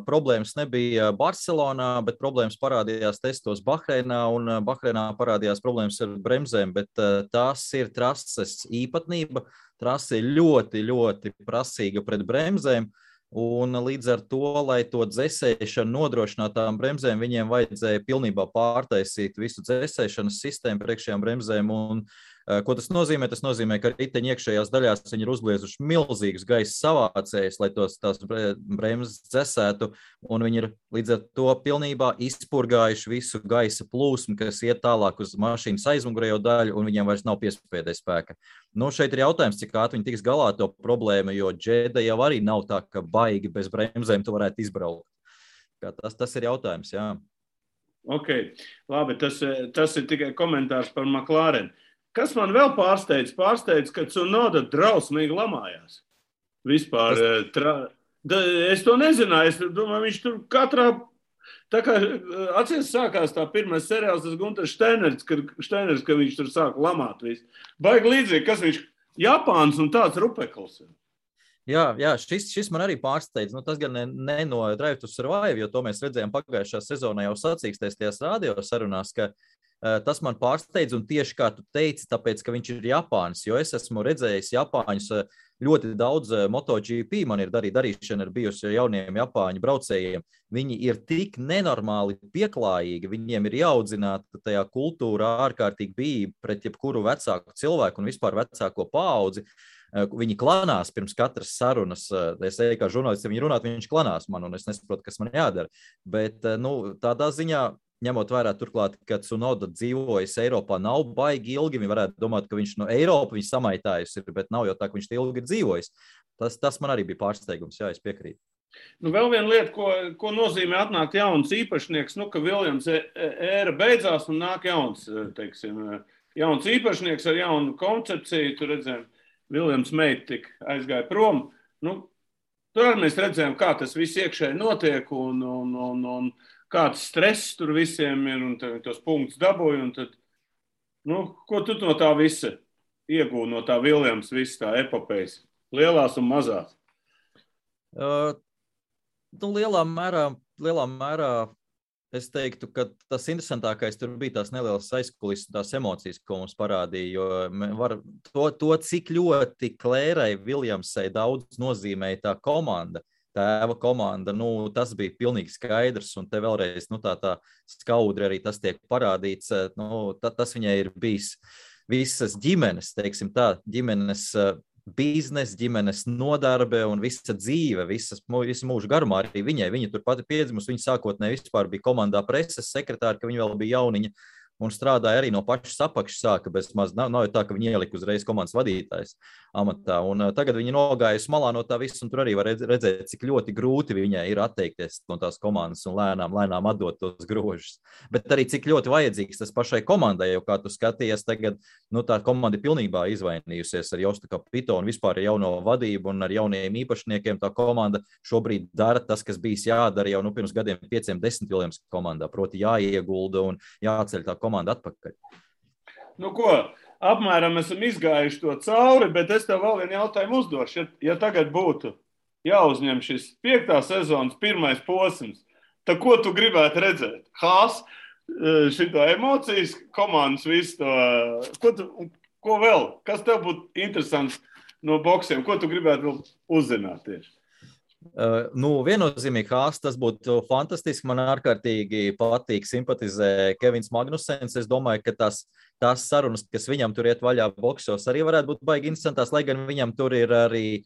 problēmas nebija Barcelonā, bet problēmas parādījās testos Bahreinā, un Bahreinā parādījās problēmas ar bremzēm, bet tās ir trases īpatnība. Trase ir ļoti, ļoti prasīga pret bremzēm, un līdz ar to, lai to dzesēšanu nodrošinātām bremzēm, viņiem vajadzēja pilnībā pārtaisīt visu dzesēšanas sistēmu priekšējām bremzēm, un ko tas nozīmē? Tas nozīmē, ka riteņa iekšējās daļās viņi ir uzliezuši milzīgus gaisa savācējus, lai tās bremzes dzesētu, un viņi ir līdz ar to pilnībā izpurgājuši visu gaisa plūsmu, kas iet tālāk uz mašīnas aizmugurējo daļu, un viņiem vairs nav piespēdē spēka. Šeit ir jautājums, cik ātri viņi tiks galā to problēmu, jo Džeda jau arī nav tā, ka baigi bez bremzēm tu varētu izbraukt. Tas ir jautājums, jā. Ok, labi, tas ir tikai komentārs par McLaren. Kas man vēl pārsteidz? Pārsteidz, ka Tsunoda drausmīgi lamājās. Vispār. Es to nezināju. Es domāju, viņš tur katrā... Tā kā atcies sākās tā pirmais seriāls, tas Gunters Steiners, ka viņš tur sāk lamāt visu. Baigi līdzīgi, kas viņš Japāns un tāds rupekls. Jā, šis man arī pārsteidz. Tas gan ne no Drive to Survive, jo to mēs redzējām pagājušā sezonā jau sacīkstēs tajās radio sarunās, ka tas man pārsteidz, un tieši kā tu teici, tāpēc, ka viņš ir Japānis, jo es esmu redzējis Japāņus ļoti daudz MotoGP, man ir darīšana ar bijusi jauniem Japāņu braucējiem. Viņi ir tik nenormāli pieklājīgi, viņiem ir jāaudzināta tajā kultūrā ārkārtīgi bija pret jebkuru vecāku cilvēku un vispār vecāko paudzi. Viņi klanās pirms katras sarunas. Es eju kā žurnālists, ja viņi runāt, viņš klanās man, un es nesaprotu, kas man jādara. Bet, tādā ziņā, ņemot vērā turklāt, ka Tsunoda dzīvojas Eiropā nav baigi ilgi, viņi varētu domāt, ka viņš no Eiropa viņš samaitājas ir, bet nav jau tā, ka viņš ilgi ir dzīvojis. Tas man arī bija pārsteigums, jā, es piekrītu. Vēl viena lieta, ko nozīmē atnākt jauns īpašnieks, ka Viljams ēra beidzās un nāk jauns īpašnieks ar jaunu koncepciju, tur redzējām, Viljams meita tik aizgāja prom. Tur arī mēs redzējām, kā tas viss iekšēji notiek un kāds stress tur visiem ir un tos punktus dabūja. Un tad, ko tu no tā visa iegūti, no tā Viljams, viss tā epopejas, lielās un mazās? Lielā mērā es teiktu, ka tas interesantākais tur bija tās nelielas aizkulisses, tās emocijas, ko mums parādīja, jo to cik ļoti Klērai Viljamsai daudz nozīmēja tā komanda, tēva komanda, tas bija pilnīgi skaidrs, un te vēlreiz, tā skaudri arī tas tiek parādīts, tas viņai ir bijis visas ģimenes, teiksim tā, ģimenes biznesa, ģimenes nodarbe un visa dzīve, visu mūžu garumā arī viņai. Viņa tur pati piedzimusi, viņa sākotnēji vispār bija komandā preses sekretāra, ka viņa vēl bija jauniņa un strādāja arī no pašas apakšas sāka, bez maz nav jau tā, ka viņi ielika uzreiz komandas vadītājs amatā. Un tagad viņi nogājas malā no tā visu, un tur arī var redzēt, cik ļoti grūti viņai ir atteikties no tās komandas un lēnām atdot tos grožus. Bet arī cik ļoti vajadzīgs tas pašai komandai, jo kā tu skatījies tagad, tā komanda ir pilnībā izvainījusies ar Jostu Kapito un vispār ar jauno vadību un ar jauniem īpašniekiem. Tā komanda šobrīd dara tas, kas bijis jādara jau pirms gadiem 5-10 Viljams komandā, proti jāiegulda un jāceļ tā komanda atpakaļ. Apmēram esam izgājuši to cauri, bet es tev vēl vienu jautājumu uzdošu. Ja tagad būtu jāuzņem šis 5. sezonas pirmais posms, tad ko tu gribētu redzēt? Haas, šito emocijas, komandas visu to, ko vēl? Kas tev būtu interesants no boksiem? Ko tu gribētu vēl uzzināt tieši? Viennozīmīgi Haas, tas būtu fantastiski. Man ārkārtīgi patīk, simpatizē Kevins Magnusens. Es domāju, ka tās sarunas, kas viņam tur iet vaļā boksos, arī varētu būt baigi interesantās, lai gan viņam tur ir arī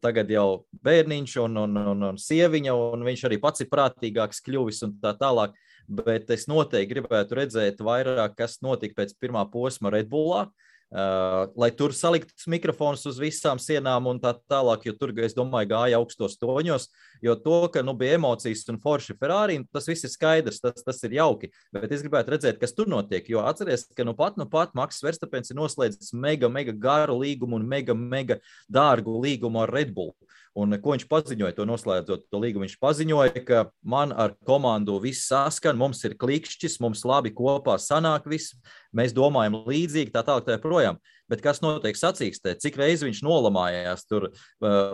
tagad jau bērniņš un sieviņa, un viņš arī pats ir prātīgāks kļuvis un tā tālāk. Bet es noteikti gribētu redzēt vairāk, kas notika pēc pirmā posma Red Bullā, lai tur saliktas mikrofonus uz visām sienām un tā tālāk, jo tur, es domāju, gāja augstos toņos, jo to, ka bija emocijas un forši Ferrari, tas viss ir skaidrs, tas ir jauki, bet es gribētu redzēt, kas tur notiek, jo atceries, ka nu pat Maks Verstapens ir noslēdzis mega garu līgumu un mega dārgu līgumu ar Red Bull. Un ko viņš paziņoja, to noslēdzot to līgumu, viņš paziņoja, ka man ar komandu viss saskan, mums ir klikšķis, mums labi kopā sanāk viss, mēs domājam līdzīgi, tā tālāk tā projām. Bet kas notiek sacīkstē, cik reizi viņš nolamājās tur,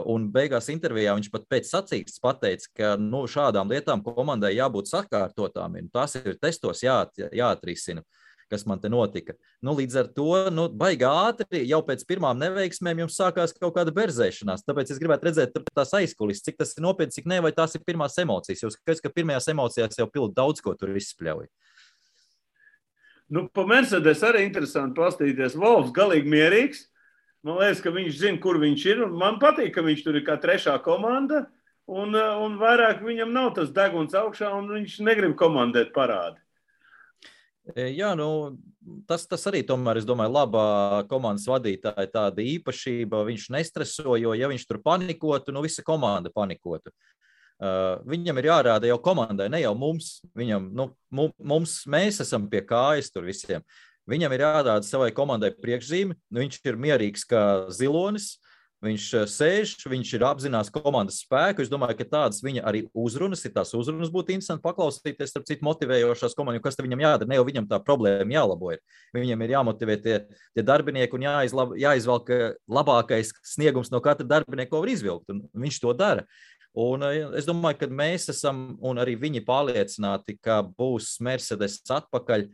un beigās intervijā viņš pat pēc sacīkstes pateica, ka šādām lietām komandai jābūt sakārtotām, un tas ir testos jāatrisina, kas man te notika. Līdz ar to, baigi ātri, jau pēc pirmām neveiksmēm jums sākās kaut kāda berzēšanās, tāpēc es gribētu redzēt tās aizkulis, cik tas ir nopietni, cik ne, vai tās ir pirmās emocijas, jo skaidrs, ka pirmajās emocijās jau pildi daudz ko tur izspļauj. Pa Mercedes arī interesanti pastīties. Volfs galīgi mierīgs. Man liekas, ka viņš zina, kur viņš ir, un man patīk, ka viņš tur ir kā trešā komanda, un vairāk viņam nav tas deguns augšā, un viņš negrib komandēt parādi. Jā, tas arī tomēr, es domāju, labā komandas vadītāja tāda īpašība, viņš nestreso, jo ja viņš tur panikotu, visa komanda panikotu. Viņam ir jārāda jau komandai, ne jau mums. Mēs esam pie kājas tur visiem. Viņam ir jārāda savai komandai priekšzīme, viņš ir mierīgs kā zilonis, viņš sēž, viņš ir apzinās komandas spēku. Es domāju, ka tādas viņa arī uzrunas, tās uzrunas būtu interesanti paklausīties, starp citu motivējošās komandas, kas te viņam jādara, ne jau viņam tā problēma jālabo ir. Viņam ir jāmotivē tie darbinieki un jāizvelk labākais sniegums no katra darbinieka, ko var izvilkt, un viņš to dara. Un es domāju, ka mēs esam, un arī viņi pārliecināti, ka būs Mercedes atpakaļ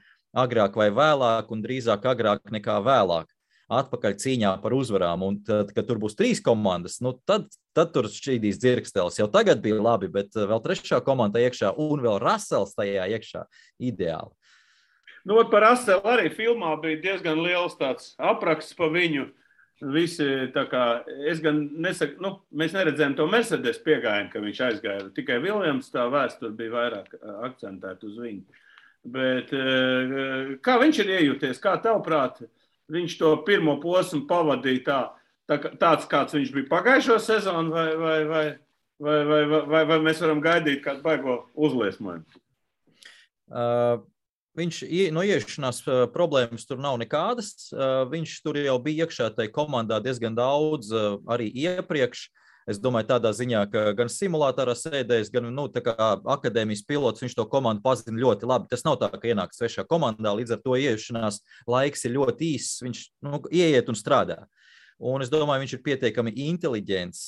agrāk vai vēlāk, un drīzāk agrāk nekā vēlāk. Atpakaļ cīņā par uzvarām, un tad, kad tur būs 3 komandas, tad tur šķīdīs dzirkstelis. Jau tagad bija labi, bet vēl trešā komanda iekšā un vēl Russells tajā iekšā ideāli. Par Russellu arī filmā bija diezgan liels tāds apraksts pa viņu. Visi, tā kā, es gan nesaku, mēs neredzējām to Mercedes piegājienu, ka viņš aizgāja. Tikai Viljams tā vēsture bija vairāk akcentēta uz viņu. Bet kā viņš ir iejūties, kā tavuprāt, viņš to pirmo posmu pavadīja tāds, kāds viņš bija pagājušo sezonu, vai mēs varam gaidīt kādu baigo uzliesmojumu? Viņš iešanās problēmas tur nav nekādas. Viņš tur jau bija iekšā tajā komandā diezgan daudz arī iepriekš. Es domāju, tādā ziņā, ka gan simulātorā sēdējis, gan tā kā akadēmijas pilots, viņš to komandu pazina ļoti labi. Tas nav tā, ka ienāk svešā komandā, līdz ar to ieiešanās laiks ir ļoti īss. Viņš ieiet un strādā. Un es domāju, viņš ir pietiekami inteliģents.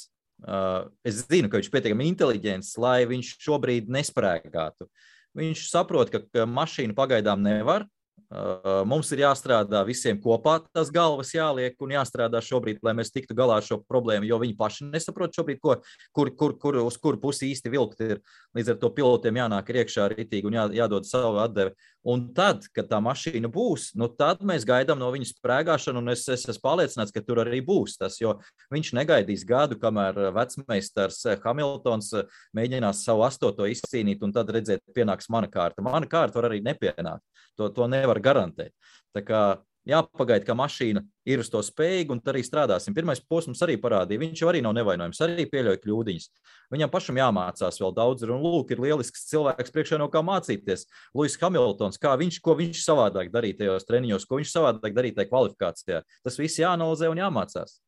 Es zinu, ka viņš ir pietiekami inteliģents, lai viņš šobrīd nesprēgātu. Viņš saprot, ka mašīnu pagaidām nevar. Mums ir jāstrādā visiem kopā, tas galvas jāliek un jāstrādā šobrīd, lai mēs tiktu galā ar šo problēmu, jo viņi paši nesaprot šobrīd, uz kur pusi īsti vilkt ir. Līdz ar to pilotiem jānāk iekšā ritīgi un jādod savu atdevi. Un tad, kad tā mašīna būs, tad mēs gaidām no viņas sprēgāšanu, un es esmu pārliecināts, ka tur arī būs tas, jo viņš negaidīs gadu, kamēr vecmeistars Hamiltons mēģinās savu 8. izcīnīt, un tad redzēt, pienāks mana kārta. Mana kārta var arī nepienākt. To nevar garantēt. Tā kā jāpagaida, ka mašīna ir uz to spējīga, un arī strādāsim. Pirmais posms arī parādīja, viņš jau arī nav nevainojams, arī pieļauj kļūdiņas. Viņam pašam jāmācās vēl daudz, un lūk, ir lielisks cilvēks priekšā no kā mācīties. Lewis Hamiltons, ko viņš savādāk darīja tajos treniņos, ko viņš savādāk darīja tajā kvalifikācijā. Tas viss jāanalizē un jāmācās.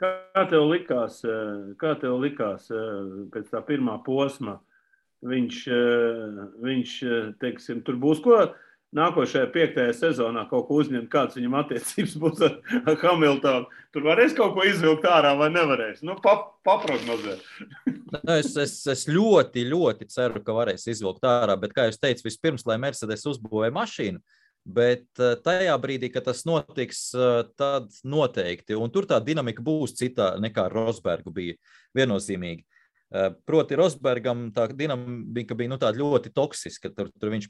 Kā tev likās pēc tā pirmā posma? Viņš teiksim, tur būs ko nākošajā 5. sezonā kaut ko uzņemt, kāds viņam attiecības būs ar Hamiltonu. Tur varēs kaut ko izvilkt ārā vai nevarēs? Paprognozē. Es ļoti ceru, ka varēs izvilkt ārā, bet, kā jūs teicu, vispirms, lai Mercedes uzbūvē mašīnu, Bet tajā brīdī, kad tas notiks, tad noteikti. Un tur tā dinamika būs citā nekā Rosbergu bija viennozīmīgi. Proti Rosbergam tā dinamika bija tāda ļoti toksiska. Tur viņš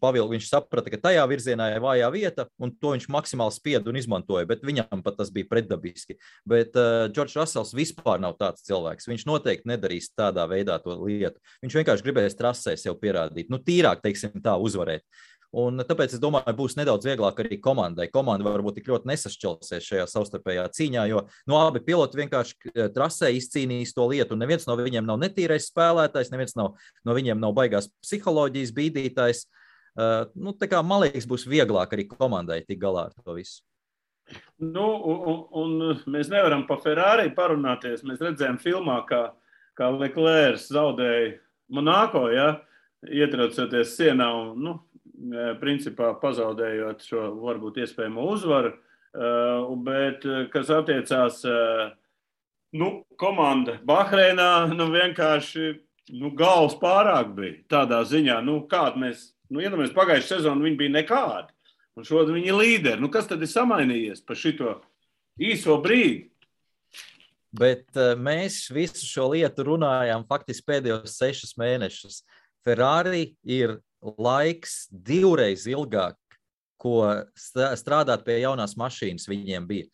saprata, ka tajā virzienā ir vājā vieta, un to viņš maksimāli spieda un izmantoja, bet viņam pat tas bija pretdabiski. Bet Džordžs Rasels vispār nav tāds cilvēks. Viņš noteikti nedarīs tādā veidā to lietu. Viņš vienkārši gribēs trasē sev pierādīt. Tīrāk, teiksim tā, uzvarēt. Un tāpēc es domāju, būs nedaudz vieglāk arī komandai. Komanda varbūt tik ļoti nesašķelsies šajā savstarpējā cīņā, jo abi piloti vienkārši trasē izcīnīs to lietu. Un neviens no viņiem nav netīrais spēlētājs, neviens no viņiem nav baigās psiholoģijas bīdītājs. Tā kā, man liekas, būs vieglāk arī komandai tik galā ar to visu. Un mēs nevaram pa Ferrari parunāties. Mēs redzējām filmā, kā Leclerc zaudēja Monako, ietraucoties sienā un, principā pazaudējot šo varbūt iespējamo uzvaru, bet, kas attiecās, komanda Bahreinā, vienkārši, galvas pārāk bija tādā ziņā, kāda mēs, iedomājamies pagājušajā sezonu, viņi bija nekādi, un šodien viņi ir līderi. Kas tad ir samainījies par šito īso brīdi? Bet mēs visu šo lietu runājām faktiski pēdējos 6 mēnešus. Ferrari ir laiks 2 reizes ilgāk, ko strādāt pie jaunās mašīnas viņiem bija.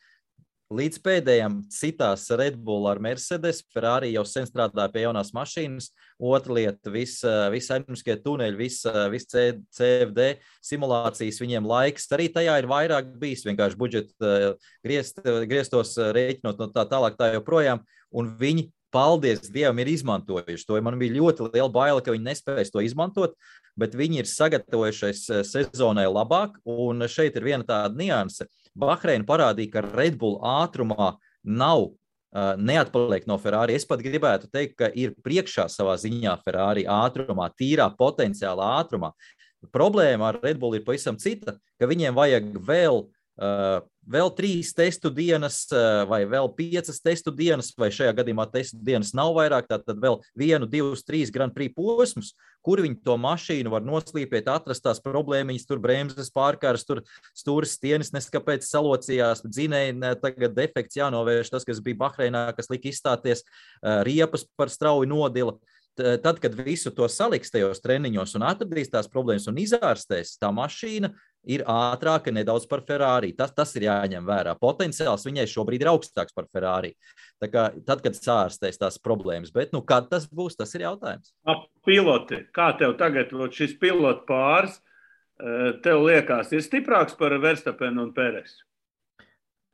Līdz pēdējām citās Red Bull ar Mercedes, Ferrari jau sen strādāja pie jaunās mašīnas. Otra lieta, visi aerodinamiskie tuneļi, visi CFD simulācijas, viņiem laiks. Arī tajā ir vairāk bijis vienkārši budžeta griestos rēķinot no tā tālāk tā joprojām. Un viņi, paldies Dievam, ir izmantojuši to. Man bija ļoti liela baila, ka viņi nespēs to izmantot, bet viņi ir sagatavojušies sezonai labāk, un šeit ir viena tāda nianse. Bahreina parādīja, ka Red Bull ātrumā neatpaliek no Ferrari. Es pat gribētu teikt, ka ir priekšā savā ziņā Ferrari ātrumā, tīrā potenciālā ātrumā. Problēma ar Red Bull ir pavisam cita, ka viņiem vajag vēl 3 testu dienas vai vēl 5 testu dienas, vai šajā gadījumā testu dienas nav vairāk, tad vēl 1, 2, 3 Grand Prix posmus, kur viņi to mašīnu var noslīpēt, atrast tās problēmiņas, tur bremzes pārkārs, tur stūris stienis neskapēc salocījās, dzinēji tagad defekts jānovērš, tas, kas bija Bahreinā, kas lika izstāties, riepas par strauji nodila. Tad, kad visu to saliks tajos treniņos un atradīs tās problēmas un izārstēs, tā mašīna ir ātrāka nedaudz par Ferrari. Tas ir jāņem vērā. Potenciāls viņai šobrīd ir augstāks par Ferrari. Tā kā tad, kad sārstēs tās problēmas. Bet, kad tas būs, tas ir jautājums. Piloti, kā tev tagad šis pilotu pāris, tev liekas, ir stiprāks par Verstappenu un Peresu?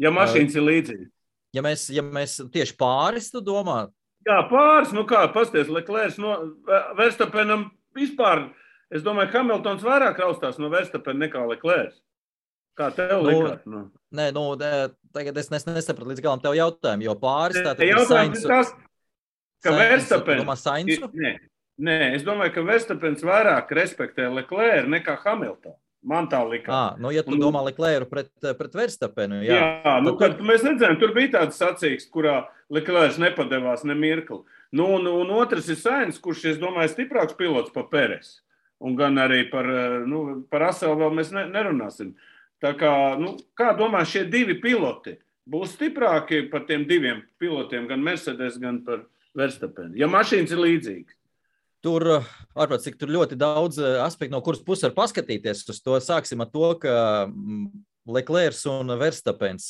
Ja mašīnas ir līdzīgi. Ja mēs tieši pāris, tu domā? Jā, pāris, pasties, Leclerc Verstappenam vispār, es domāju, Hamiltons vairāk raustās no Verstappena nekā Leclerc. Kā tev likās? Nē, tagad es nesapratu līdz galam tev jautājumu, jo pāris tātad ir Sainz. Ka Verstappen... Sainzu? Nē, es domāju, ka Verstappens vairāk respektē Leclerc nekā Hamiltonu. Man tā likās. Ja tu domā Leclercu pret Verstappenu, jā. Kad mēs redzējām, tur bija tāds sacīksts, kurā Leclerc nepadevās ne mirkli. Un otrs ir Sainz, kurš, es domāju, stiprāks pilots par Peresu. Un gan arī par Raselu vēl mēs nerunāsim. Tā kā, kā domā, šie 2 piloti būs stiprāki par tiem 2 pilotiem, gan Mercedes, gan par Verstappenu, ja mašīnas ir līdzīgas? Tur, ārprāt, cik tur ļoti daudz aspektu, no kuras puses var paskatīties uz to. Sāksim ar to, ka Leclerc un Verstappens,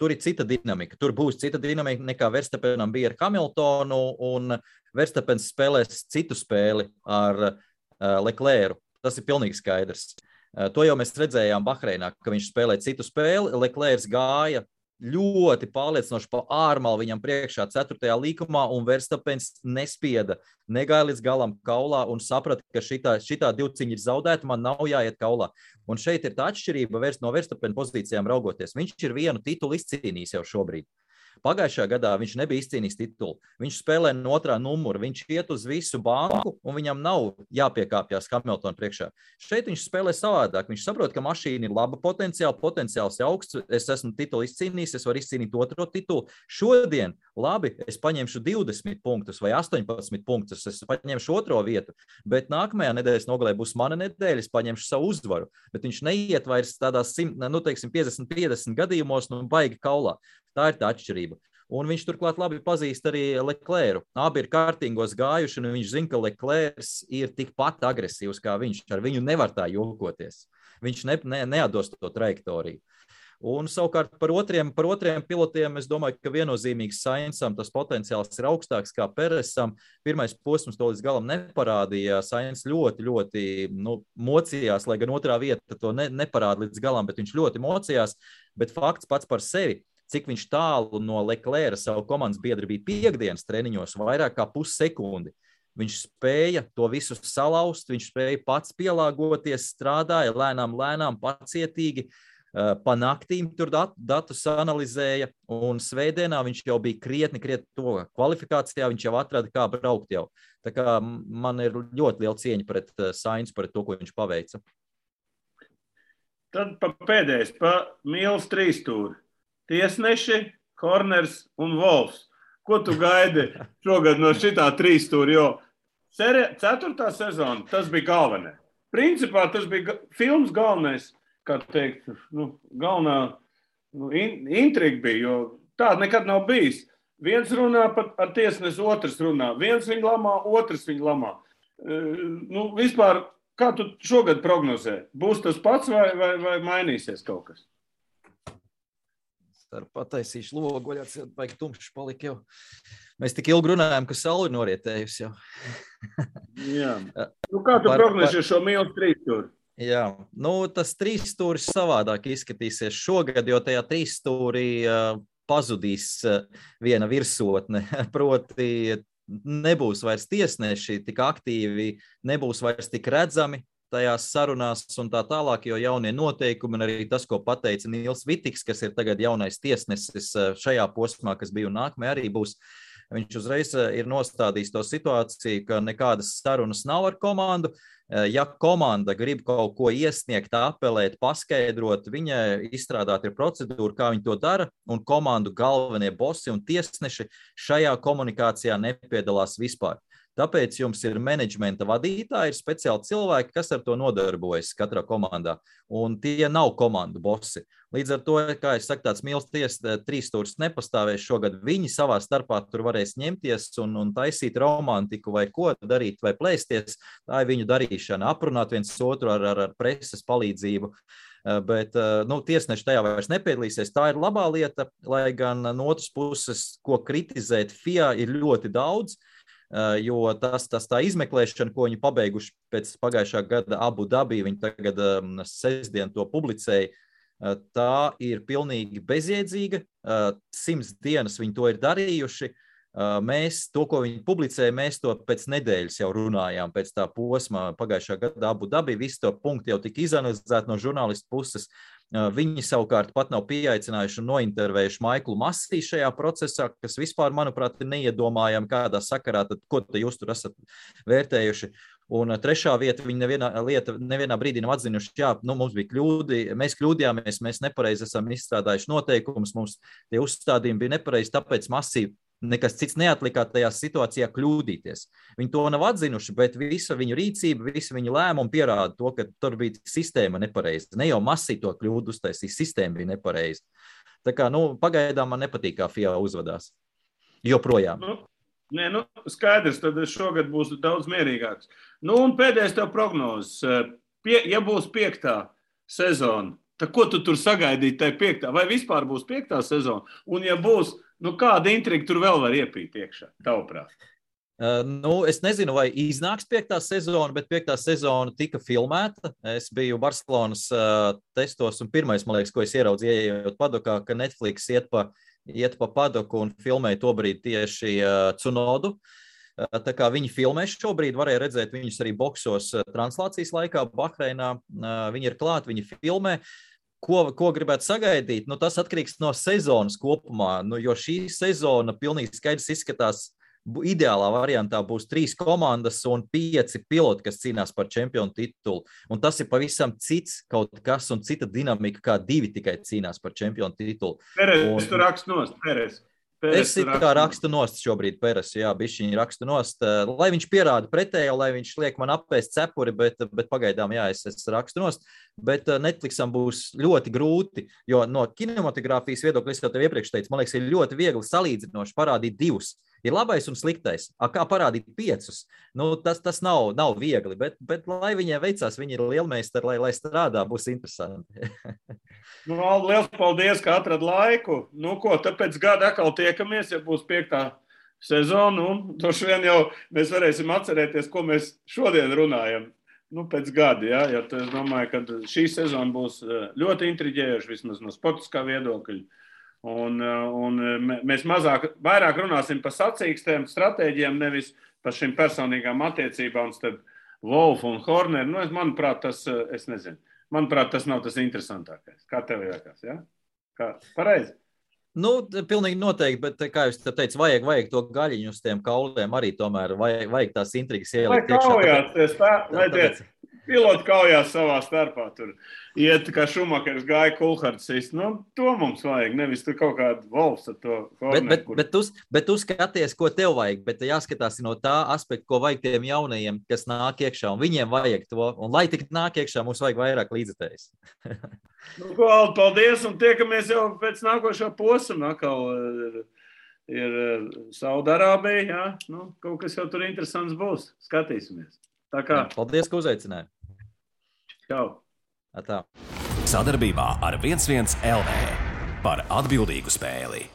tur ir cita dinamika. Tur būs cita dinamika nekā Verstappenam bija ar Hamiltonu, un Verstappens spēlēs citu spēli ar Leclercu. Tas ir pilnīgi skaidrs. To jau mēs redzējām Bahreinā, ka viņš spēlē citu spēli. Leclerc gāja ļoti pārliecinoši pa ārmalu viņam priekšā 4. līkumā, un Verstappens nespieda, negāja līdz galam kaulā un saprata, ka šitā divciņa ir zaudēta, man nav jāiet kaulā. Un šeit ir tā atšķirība no Verstappena pozīcijām raugoties. Viņš ir vienu titulu izcīnījis jau šobrīd. Pagājušajā gadā viņš nebija izcīnījis titulu. Viņš spēlē no otrā numura, viņš iet uz visu banku, un viņam nav jāpiekāpjas Hamiltona priekšā. Šeit viņš spēlē savādāk. Viņš saprot, ka mašīna ir laba potenciāls augsts, es esmu titulu izcīnījis, es varu izcīnīt otro titulu. Šodien, labi, es paņemšu 20 punktus vai 18 punktus, es paņemšu otro vietu, bet nākamajā nedēļas nogalē būs mana nedēļa, es paņemšu savu uzvaru. Bet viņš neiet vairs tādās 50-50 gadījumos, baigi kaulā. Tā ir tā atšķirība. Un viņš turklāt labi pazīst arī Leclercu. Abi ir kārtīgos gājuši, un viņš zina, ka Leclercs ir tikpat agresīvs kā viņš. Ar viņu nevar tā jokoties. Viņš neatdos to trajektoriju. Un savukārt par otriem pilotiem es domāju, ka viennozīmīgi Sainzam tas potenciāls ir augstāks kā Peresam. Pirmais posms to līdz galam neparādīja. Sainz ļoti mocījās, lai gan otrā vieta to neparāda līdz galam, bet viņš ļoti mocījās. Bet fakts pats par sevi, cik viņš tālu no Leclerca savu komandas biedri bija piekdienas treniņos, vairāk kā pussekundi. Viņš spēja to visu salauzt, viņš spēja pats pielāgoties, strādāja lēnām, pacietīgi. Pa naktīm tur datus analizēja, un svētdienā viņš jau bija krietni to kvalifikācijā, viņš jau atrada, kā braukt jau. Tā kā man ir ļoti liela cieņa pret Sainzu, pret to, ko viņš paveica. Tad pēdējais, pa Mīls trīstūri. Tiesneši, Horners un Wolfs. Ko tu gaidi šogad no šitā trīstūri, jo 4. sezona, tas bija galvenais. Principā tas bija filmas galvenais, kā teikt, galvenā intriga bija, jo tāda nekad nav bijis. Viens runā ar tiesnesi, otrs runā. Viens viņu lamā, otrs viņu lamā. Vispār, kā tu šogad prognozē? Būs tas pats vai mainīsies kaut kas? Ar pataisīšu logu, vaļāts, baigi tumšs palika jau. Mēs tik ilgi runājām, ka saule ir norietējusi jau. Jā. Kā tu prognozē šo Mīls trīstūri? Jā, tas trīsstūris savādāk izskatīsies šogad, jo tajā trīsstūrī pazudīs viena virsotne, proti nebūs vairs tiesneši tik aktīvi, nebūs vairs tik redzami tajās sarunās un tā tālāk, jo jaunie noteikumi un arī tas, ko pateica Nils Vitiks, kas ir tagad jaunais tiesnesis šajā posmā, kas bija un nākamajā arī būs, viņš uzreiz ir nostādījis to situāciju, ka nekādas sarunas nav ar komandu. Ja komanda grib kaut ko iesniegt, apelēt, paskaidrot, viņa izstrādāt ir procedūra, kā viņi to dara, un komandu galvenie bosi un tiesneši šajā komunikācijā nepiedalās vispār. Tāpēc jums ir menedžmenta vadītāji, ir speciāli cilvēki, kas ar to nodarbojas katrā komandā, un tie nav komandu bosi. Līdz ar to, kā es saku, tāds Mīls trīsstūris nepastāvēs šogad, viņi savā starpā tur varēs ņemties un taisīt romantiku vai ko darīt vai plēsties, tā ir viņu darīšana, aprunāt viens otru ar preses palīdzību. Bet tiesneši tajā vairs nepiedalīsies. Tā ir labā lieta, lai gan no otras puses, ko kritizēt FIA ir ļoti daudz, jo tā izmeklēšana, ko viņi pabeiguši pēc pagājušā gada Abu Dabī, viņi tagad sestdien to publicēja, tā ir pilnīgi bezjēdzīga. 100 dienas viņi to ir darījuši. Mēs to, ko viņi publicēja, mēs to pēc nedēļas jau runājām, pēc tā posma pagājušā gada Abu Dabī, visi to punkti jau tika izanalizēti no žurnālistu puses. Viņi savukārt pat nav pieaicinājuši un nointervējuši Maiklu Masī šajā procesā, kas vispār, manuprāt, ir neiedomājami kādā sakarā, tad ko jūs tur esat vērtējuši. Un trešā vieta, viņi nevienā brīdī nav atzinuši, mums bija kļūdi, mēs kļūdījāmies, mēs nepareizi esam izstrādājuši noteikumus, mums tie uzstādījumi bija nepareizi, tāpēc Masī nekas cits neatlikā tajā situācijā kļūdīties. Viņi to nav atzinuši, bet visa viņu rīcība, visa viņu lēmuma pierāda to, ka tur bija sistēma nepareiza. Ne jau Masī to kļūdu uztaisīja, sistēma bija nepareiza. Tā kā, pagaidām man nepatīk, kā FIA uzvedās. Joprojām. Skaidrs, tad šogad būs daudz mierīgāks. Un pēdējais tev prognozes. Ja būs 5. sezona, tad ko tu tur sagaidīt tai 5. vai vispār būs 5. sezona? Un ja būs, kāda intriga tur vēl var iepīt iekšā, tavuprāt? Es nezinu, vai iznāks 5. sezona, bet 5. sezona tika filmēta. Es biju Barcelonas testos un pirmais, man liekas, ko es ieraudzīju, ejot padokā, ka Netflix iet pa padoku un filmēja tobrīd tieši Tsunodu. Tā kā viņi filmē šobrīd, varēja redzēt viņus arī boksos translācijas laikā Bahreinā. Viņi ir klāt, viņi filmē. Ko gribētu sagaidīt? Nu, tas atkarīgs no sezonas kopumā, jo šī sezona pilnīgi skaidrs izskatās. Ideālā variantā būs 3 komandas un 5 piloti, kas cīnās par čempionu titulu. Un tas ir pavisam cits kaut kas un cita dinamika, kā 2 tikai cīnās par čempionu titulu. Peres, tu rakst nost, Peres. Es it kā rakstu nost šobrīd Peres, jā, bišķiņi rakstu nost, lai viņš pierāda pretējo, lai viņš liek man apēst cepuri, bet pagaidām, jā, es rakstu nost, bet Netflixam būs ļoti grūti, jo no kinematogrāfijas viedokļa, es jau tev iepriekš teicu, man liekas, ir ļoti viegli salīdzinoši parādīt 2. Ir labais un sliktais. Kā parādīt 5? Nu, tas nav viegli, bet lai viņiem veicās, viņi ir lielmeistari, lai strādā, būs interesanti. Nu, liels paldies, ka atrad laiku. Nu, ko, tāpēc gada atkal tiekamies, ja būs 5. sezona. Droši vien jau mēs varēsim atcerēties, ko mēs šodien runājam. Nu, pēc gada, ja? Jo es domāju, ka šī sezona būs ļoti intriģējoša, vismaz no sportiskā viedokļa. Un mēs vairāk runāsim par sacīkstēm, stratēģiem, nevis par šīm personīgām attiecībām starp Wolfu un Horneru. Nu, manuprāt, es nezinu. Manuprāt, tas nav tas interesantākais. Kā tev liekas, ja? Pareizi? Nu, pilnīgi noteikti, bet, kā jūs teicu, vajag to gaļiņu uz tiem kauliem arī tomēr, vajag tās intrigas ielikt iekšā. Vai tie piloti kaujās savā starpā tur iet, kā Šumakers gāja Kulhards sist. Nu, to mums vajag, nevis tur kaut kādu Wolfs ar to Horneru. Bet tu skaties, ko tev vajag, bet jāskatās no tā aspekta, ko vajag tiem jaunajiem, kas nāk iekšā, un viņiem vajag to, un lai tik nāk iekšā, mums vajag vairāk līdzekļus. Nu, paldies, un tiekamies jau pēc nākošā posma. Atkal ir Saudarābija, jā. Nu, kaut kas jau tur interesants būs. Skatīsimies. Tā kā. Paldies, ka uzaicināji. Čau. Atā. Sadarbībā ar 11 LV par atbildīgu spēli.